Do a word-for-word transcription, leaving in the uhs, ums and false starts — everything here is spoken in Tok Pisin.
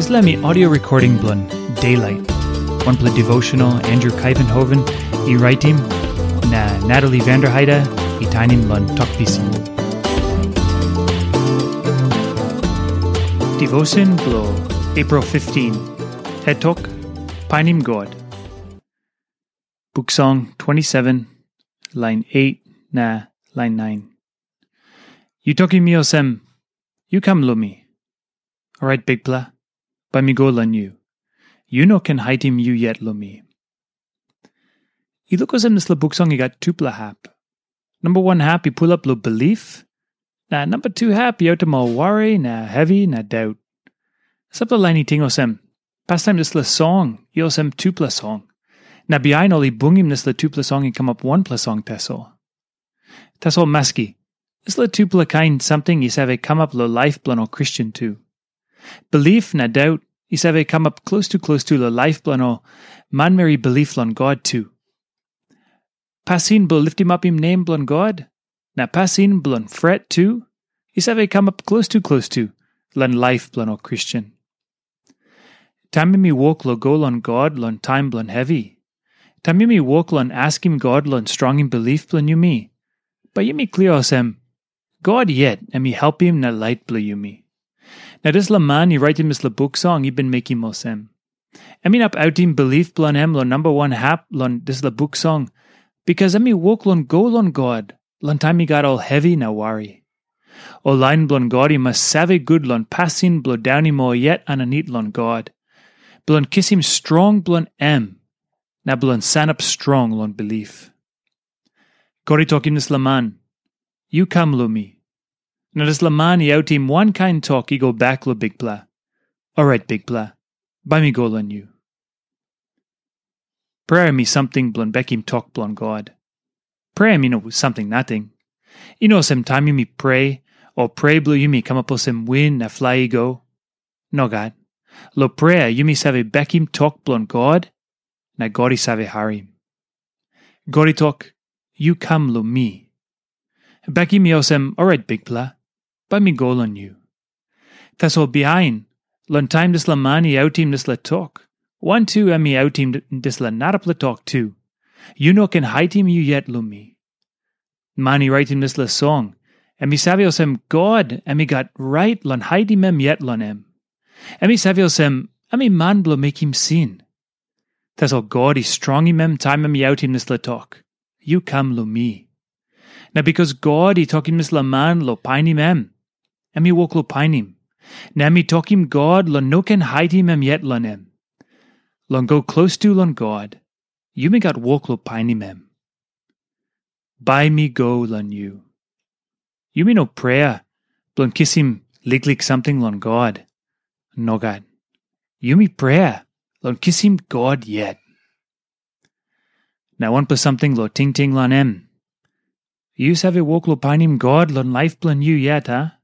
Dispela mi audio recording bilong Daylight. Wanpela devotional Andrew Kaivenhoven i raitim na Natalie Vanderheide i tainim long Tok Pisin. Devotion bilong April fifteen. Het tok, Painim God. Buk Song twenty-seven, lain eight na lain nine. Yu tokim mi olsem, "Yu kam long mi." Orait, Bikpela, bai mi go long yu. Yu no ken haitim yu yet long mi. I luk olsem dispela buk song i gat tupela hap. Namba wan hap i pulap long bilip, na namba tu hap i autim ol wari na hevi na daut. Sampela lain i ting olsem, pastaim dispela song i olsem tupela song. Na bihain ol i bungim dispela tupela song i kamap wanpela song tasol. Tasol maski, dispela tupela kain samting i save kamap long laip bilong ol Kristen tu. Bilip na daut i save kamap klostu klostu long laip bilong ol manmeri bilip long God tu. Pasin bilong litimapim nem bilong God, na pasin bilong fret tu, i save kamap klostu klostu long laip bilong ol Kristen. Taim yumi wok long go long God long taim bilong hevi, taim yumi wok long askim God long strongim bilip bilong yumi, bai yumi klia olsem, God yet em i helpim na lait bilong yumi. Na dispela man i raitim dispela buk song i bin mekim olsem. Em inap autim bilip bilong em long namba wan hap long dispela buk song, bikas em i wok long go long God long taim i gat ol hevi na wari. Ol lain bilong God i mas save gut long pasin bilong daunim ol yet aninit long God, bilong kisim strong bilong em, na bilong sanap strong long bilip. God i tokim dispela man, "Yu kam long mi." Na dispela man i autim wankain tok i go bek long Bikpela, "Orait Bikpela, bai mi go long yu." Prea em i samting bilong bekim tok bilong God. Prea em i no samting nating. I no olsem taim yumi prea, o prea bilong yumi kamap olsem win na flai i go. Nogat. Long prea yumi save bekim tok bilong God, na God i save harim. God i tok, "Yu kam long mi." Bekim i olsem, "Orait Bikpela, bai mi go long yu." Tasol bihain, long taim dispela man i autim dispela tok, wantu em i autim dispela narapela tok tu, "Yu no ken haitim yu yet long mi." Man i raitim dispela song, em i save olsem God em i gat rait long haitim em yet long em. Em i save olsem em i man bilong mekim sin. Tasol God i strongim em taim em i autim dispela tok, "Yu kam long mi." Na bikas God i tokim dispela man long painim em, em i wok long painim. Na em i tokim God long no ken haitim em yet long em. Long go klostu long God, yumi gat wok long painim em. Bai mi go long yu. Yumi no prea bilong kisim liklik samting long God. Nogat. Yumi prea long kisim God yet. Na wanpela samting long tingting long em. Yu save wok long painim God long laip bilong yu yet, a?